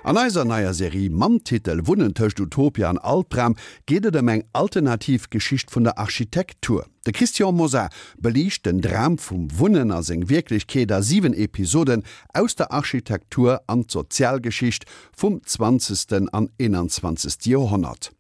An eiser neier Serie mam Titel Wunnen tëscht Utopia an Albdram geet et ëm eng alternativ Geschicht vun der Architektur. De Christian Mosar beliicht den Dram vum Wunnen a seng Wierklechkeet a 7 Episoden aus der Architektur an d'Sozialgeschicht vum zwanzegsten an eenanzwanzegste Joerhonnert.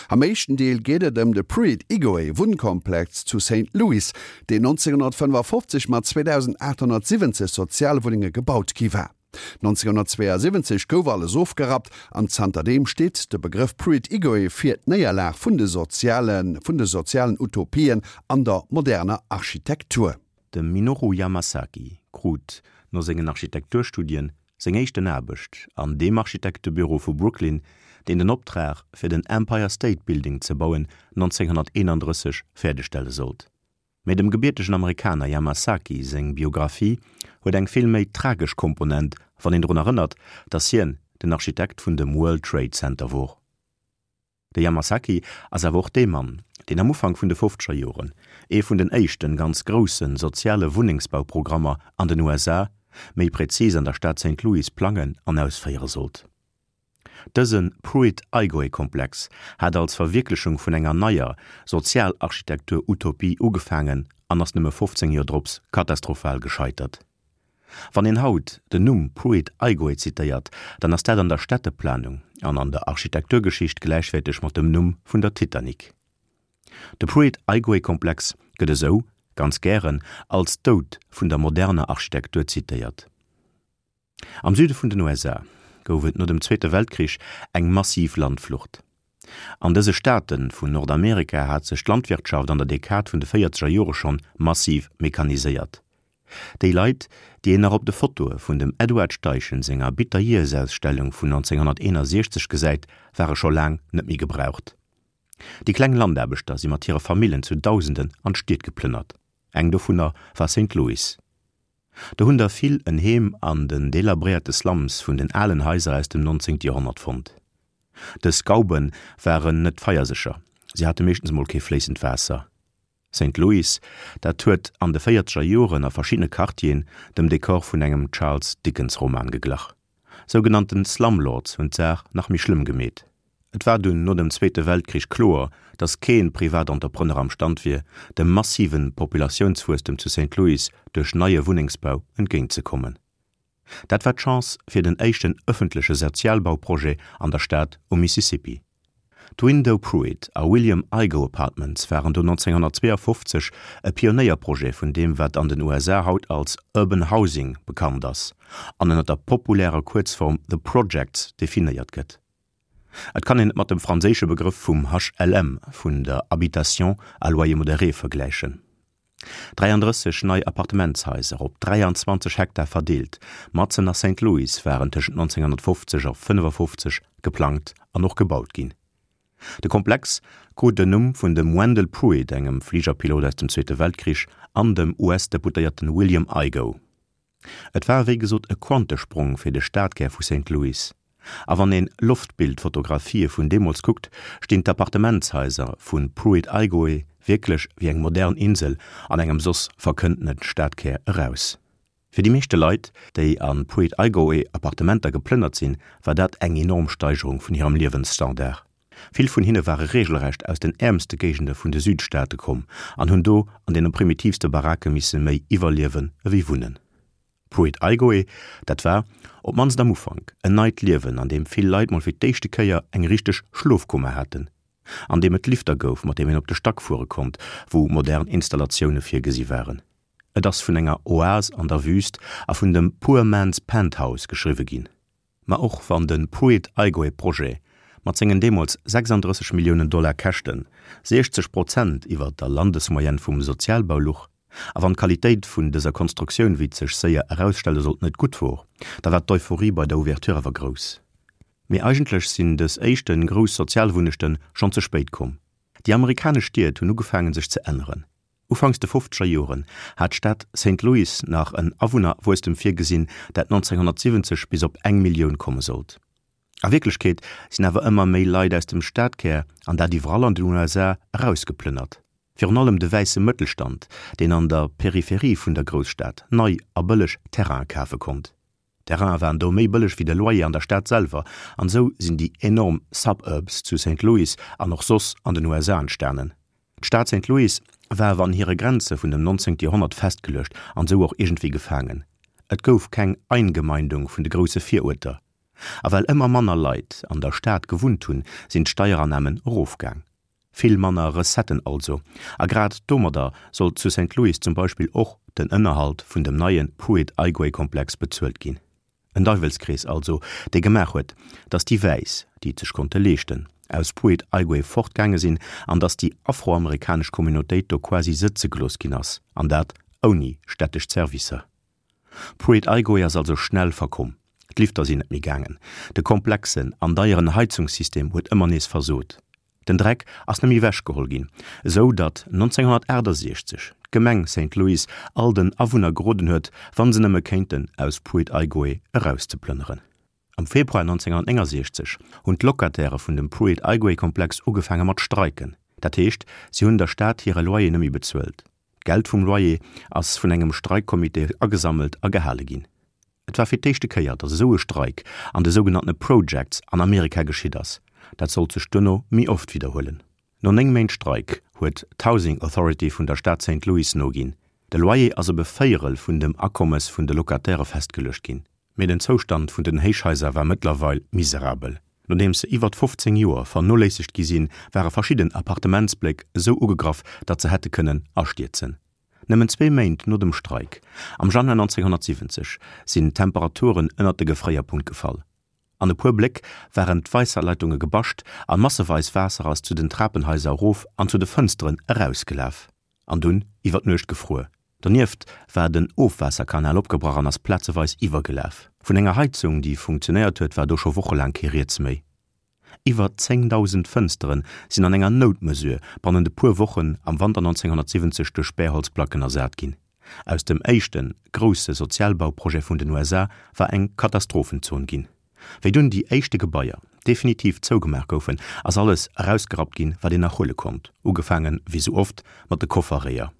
Am éischten Deel geet et ëm de Pruitt-Igoe Wunnkomplex zu Saint Louis, deen 1955 mat 2.870 Sozialwunnenge gebaut gi war. 1972 gouf alles ofgerappt an zanterdeem steet de Begrëff Pruitt-Igoe fir d'Néierlag vun de soziale vun de sozialen Utopien an der moderner Architektur. De Minoru Yamasaki krut no sengen Architekturstudien seng éischten Aarbecht an deem Architektebüro vu Brooklyn, deen den Optrag fir den Empire State Building ze bauen 1931 fäerdegstelle sollt. Mee dem gebiertegen Amerikaner Yamasaki seng Biographie huet eng vill méi tragesch Komponent, wann een drun erënnert, datt hien den Architekt vun dem World Trade Center wor. De Yamasaki ass awer och dee Mann, deen am Ufank vun de fofzeger Joren ee vun den éischten ganz grousse soziale Wunnengsbauprogrammer an den USA, méi prezis an der Stad Saint Louis, plangen an ausféiere sollt. Dëse Pruitt-Igoe-Komplex hat als Verwierklechung vun enger neier Sozialarchitektur-Utopie ugefaangen an ass nëmme 15 Joer drops katastrophal gescheitert. Wann een haut den Numm Pruitt-Igoe zitéiert, dann ass dat an der Städteplanung an an der Architekturgeschicht gläichwäerteg mat dem Numm vun der Titanic. De Pruitt-Igoe-Komplex gëtt esou, ganz gären, als Doud vun der moderner Architektur zitéiert. Am Süde vun den USA gouf et no dem Zweete Weltkrich eng massiv Landflucht. An dëse Staate vun Nordamerika hat sech d'Landwirtschaft an der Dekad vun de véierzeger Jore schonn massiv mechaniséiert. Déi Leit, déi een nach op de Fotoe vun dem Edward Steichen senger Bitter-Years-Ausstellung vun 1961 gesäit, ware scho laang net méi gebraucht. Déi kleng Landaarbechter si mat hire Famillen zu Dausenden an d'Stied geplënnert. Eng dovunner war Saint Louis. Do hunn der vill en Heem an den delabréierte Slums vun den alen Haiser aus dem 19. Joerhonnert fonnt. Dës Gauben waren net feiersécher, se hate meeschtens mol kee fléissend Waasser. Saint Louis, dat huet an de véierzeger Joren a verschiddene Quartieren dem Dekor vun engem Charles Dickens Roman geglach. Sougenannten Slumlords hunn d'Saach nach méi schlëmm gemeet. Et war dunn no dem Zweete Weltkrich kloer, datt kee Privatentrepreneur am Stand wier, dem massive Populatiounswuesstem zu Saint Louis duerch neie Wunnengsbau entgéint ze kommen. Dat war d'Chance fir den éischten ëffentleche Sozialbauprojet an der Stad um Mississippi. D'Window Pruitt a William Igoe Apartments waren do 1952 e Pionéierprojet vun deem wat an den USA haut als Urban Housing bekannt ass an ënner der populärer Kuerzform The Projects definéiert gëtt. Et kann een et mat dem franséische Begrëff vum HLM, vun der Habitation à loyer modéré vergläichen. 33 nei Appartementshaiser op 23 Hektar verdeelt, matzen a Saint Louis waren tëschent 1950 a 55 geplangt an och gebaut ginn. De Komplex krut den Numm vun dem Wendell Pruitt, engem Fligerpilot aus dem Zweete Weltkrich, an dem US-Deputéierten William Igoe. Et war wéi gesot e Quantesprong fir de Stadkär vu Saint Louis. A wann een Loftbildfotografië vun deemools kuckt, stinn d'Appartementshaiser vu Pruitt-Igoe wierklech wéi eng modern Insel an engem soss verkënntene Stadkär eraus. Fir déi meeschte Leit, déi a Pruitt-Igoe Appartementer geplënnert sinn, war dat eng enorm Steigerung vun hirem Liewensstandard. Vill vun hinne ware regelrecht aus den äermste Géigende vun de Südstaate komm an hunn do an deene primitivste Barake misse méi iwwerliewen ewéi wunnen. Pruitt-Igoe, dat war, op d'mannst am Ufank, en neit Liewen, an deem vill Leit mol fir d'éischte Kéier eng richteg Schlofkummer haten, an deem et Lifter gouf, mat deem een op de Stack fuere konnt, wou modern Installatioune virgesi waren. Et ass vun enger Oase an der Wüüst a vun dem Poor Man's Penthouse geschriwwe ginn. Ma och wann de Pruitt-Igoe-Projet mat sengen deemools 36 Milliounen Dollar Käschten 60 Prozent iwwer der Landesmoyenne vum Sozialbau luch, a wann d'Qualitéit vun dëser Konstruktioun, wéi et sech séier erausstelle sollt, net gutt wor, da war d'Euphorie bei der Ouverture awer grouss. Mee eigentlech sinn dës éischte grouss Sozialwunnechte schonn ze spéit komm. Déi amerikanesch Stied hunn ugefaangen sech ze änneren. Ufanks de fofzeger Joren hat d'Stad Saint Louis nach en Awunnerwuesstem virgesinn, dat 1970 bis op eng Millioun komme sollt. A Wierklechkeet sinn awer ëmmer méi Leit aus dem Stadkär, an dat iwwerall an den USA, erausgeplënnert. Virun allem de wäisse Mëttelstand, deen an der Peripherie vun der Grousstad nei a bëlleg Terraine kafe konnt. D'Terrainen waren do méi bëlleg wéi de Loyer an der Stad selwer, an esou sinn déi enorm Suburbs zu Saint Louis an och soss an den USA entstanen. D'Stad Saint Louis war awer an hire Grenze vun dem 19. Joerhonnert festgeluecht an esou och iergendwéi gefaangen. Et gouf keng Eingemeindung vun de grousse Viruerter. A well ëmmer manner Leit an der Stad gewunnt hunn, sinn d'Steierannamen erofgaang. Vill manner Recetten also, a grad domadder sollt zu Saint Louis zum Beispill och den Ënnerhalt vun dem neie Pruitt-Igoe-Komplex bezuelt ginn. En Deiwelskrees also, dee gemaach huet, datt déi Wäiss, déi et sech konnte leeschten, aus Pruitt-Igoe fortgaange sinn an datt déi afroamerikanesch Communautéit do quasi sëtze gelooss ginn ass, an dat ouni städtesch Zerwisser. Pruitt-Igoe ass also schnell verkomm. D'Lifter sinn net méi gaangen, de komplexen an deieren Heizungssystem huet ëmmer nees versot, den Dreck ass net méi ewech geholl ginn, esou datt 1968 d'Gemeng Saint Louis all den Awunner geroden huet, wann se nëmme kéinten, aus Pruitt-Igoe erauszeplënneren. Am Februar 1969 hunn d'Locataire vun dem Pruitt-Igoe-Komplex ugefaange mat streiken, dat heescht, si hunn der Stad hire Loyer net méi bezuelt. D'Geld vum Loyer ass vun engem Streikcomité agesammelt a gehale ginn. Et war fir d'éischte Kéier, datt esou e Streik an de sougenanntene Projects an Amerika geschitt ass. Dat sollt sech duerno méi oft widderhuelen. No 9 Méint Streik huet d'Housing Authority vun der Stad Saint Louis noginn. De Loyer ass op e Véierel vun dem Akommes vun de Locatairë festgeluecht ginn. Mee den Zoustand vun den Héichhaiser war mëttlerweil miserabel. Nodeems se iwwert 15 Joer vernoléissegt gi sinn, ware verschidden Appartementsbléck esou ugegraff, datt se hätte kënnen astierzen. Nëmmen zwee Méint no dem Streik, am Januar 1970, sinn d'Temperaturen ënnert de Gefréierpunkt gefall. An e puer Bléck waren d'Waisserleitunge gebascht a masseweis Waasser ass zu den Trapenhaiser erof an zu de Fënsteren erausgelaf. An dunn iwwer d'Nuecht gefruer. Donieft war den Ofwaasserkanal opgebrach an ass plazeweis iwwergelaf. Vun enger Heizung, déi funktionéiert huet, war do scho wochelaang kee Rieds méi. Iwwer 10.000 Fënstere sinn an enger Noutmesure bannent e puer Wochen am Wanter 1970 duerch Späerholzplacken ersat ginn. Aus dem éischte grousse Sozialbauprojet vun den USA war eng Katastrophenzon ginn. Wéi dunn déi éischte Gebaier definitiv zougemaach goufen, ass alles erausgerappt ginn, wat een nach huele konnt, ugefaange wéi sou oft mat de Kofferréier.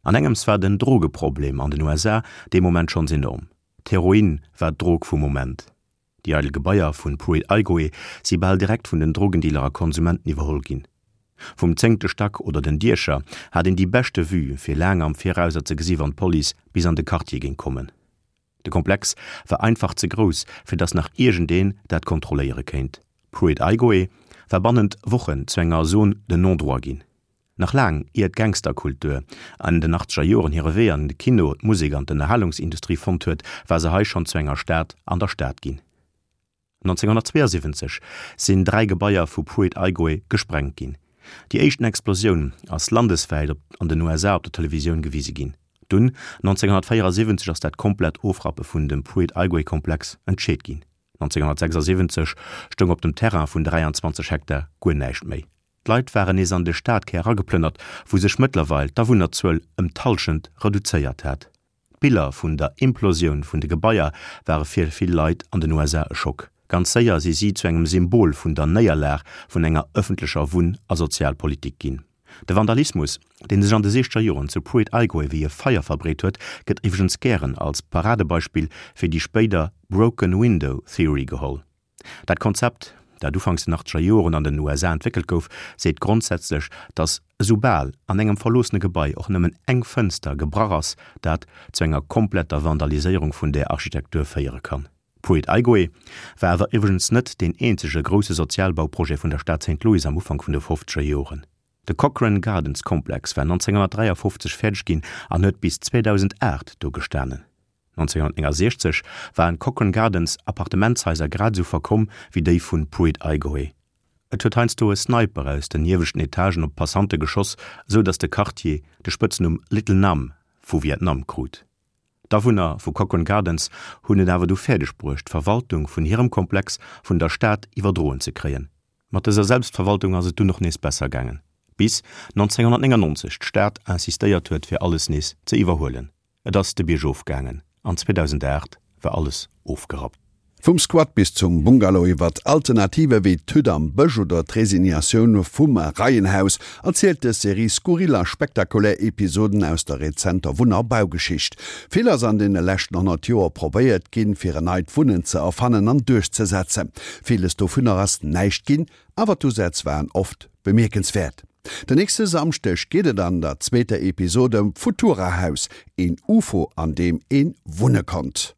An engems war den Drogeproblem an den USA dee Moment schonns enorm. D'Heroin war d'Drog vum Moment. Déi eidel Gebaier vun Pruitt-Igoe si bal direkt vun den Drogendealer a Konsumenten iwwerholl ginn. Vum zéngte Stack oder den Diecher hat een déi beschte Vue fir laang am Virauser ze gesi wann d'Police bis an de Quartier géing kommen. De Komplex war einfach ze grouss, fir datt nach iergendeen dat kontrolléiere kéint. Pruitt-Igoe war bannent Wochen zu enger Zone de non-droit ginn. Nach laang ier d'Gangsterkultur an den achtzeger Joren hire Wee an de Kino, d'Musek an d'Ënnerhalungsindustrie fonnt huet, war se hei schonn zu enger Stad an der Stad ginn. 1972 sinn 3 Gebaier vu Pruitt-Igoe gesprengt ginn. Déi éischten Explosioun ass landeswäit op an den USA op der Televisioun gewise ginn. Dunn, 1974, ass dat komplett Ofrappe vun dem Pruitt-Igoe-Komplex entscheet ginn. 1976 stoung op dem Terrain vun 23 Hektar guer näischt méi. D'Leit waren nees an de Stadkär erageplënnert, wou sech mëttlerweil d'Awunnerzuel ëm d'Hallschent reduzéiert hat. D'Biller vun der Implosioun vun de Gebaier ware fir vill Leit an den USA e Schock. Ganz séier si si zu engem Symbol vun der Néierlag vun enger ëffentlecher Wunn a Sozialpolitik ginn. De Vandalismus, dee sech an de siechzeger Joren zu Pruitt-Igoe wéi e Feier verbreet huet, gëtt iwwregens gären als Paradebeispill fir déi spéider Broken Window Theory geholl. Dat Konzept, dat ufanks den achtzeger Joren an den USA entwéckelt gouf, seet grondsätzlech, datt esoubal an engem verloossene Gebai och nëmmen eng Fënster gebrach ass, dat zu enger kompletter Vandaliséierung vun där Architektur féiere kann. Pruitt-Igoe war awer iwwregens net deen eenzege grousse Sozialbauprojet vun der Stad Saint Louis am Ufank vun de fofzeger Joren. De Cochrane Gardens Komplex war 1953 fäerdeg ginn an huet bis 2008 do gestanen. 1969 waren d'Cochrane Gardens Appartementshaiser grad esou verkomm wéi déi vun Pruitt-Igoe. Et huet heiansdo e Sniper aus den ieweschten Etagen op d'Passante geschoss, esou datt de Quartier de Spëtznumm Little Nam vu Vietnam krut. D'Awunner vu Cochrane Gardens hunn et awer du fäerdeg bruecht, d'Verwaltung vun hirem Komplex vun der Stad iwwerdroen ze kréien. Mat dëser Selbstverwaltung ass et dunn och nees besser gaangen, bis 1999 d'Stad insistéiert huet fir alles nees ze iwwerhuelen. Et ass de Bierg of gaangen an 2008 war alles ofgerappt. Vum Squat bis zum Bungalow, iwwert Alternative wéi d'Hütt am Bësch oder d'Resignatioun vum Reienhaus erzielt dës Serie skurril a spektakulär Episoden aus der rezenter Wunn a Baugeschicht. Vill ass an deene leschten 100 Joer probéiert ginn, fir en neit Wunnen ze erfannen an duerchzesetzen. Villes dovunner ass näischt ginn, awer d'Usätz waren oft bemierkenswäert. Den nächste Samschdeg geet et an der zweeter Episod ëm d'Futura-Haus, een Ufo an deem ee wunne konnt.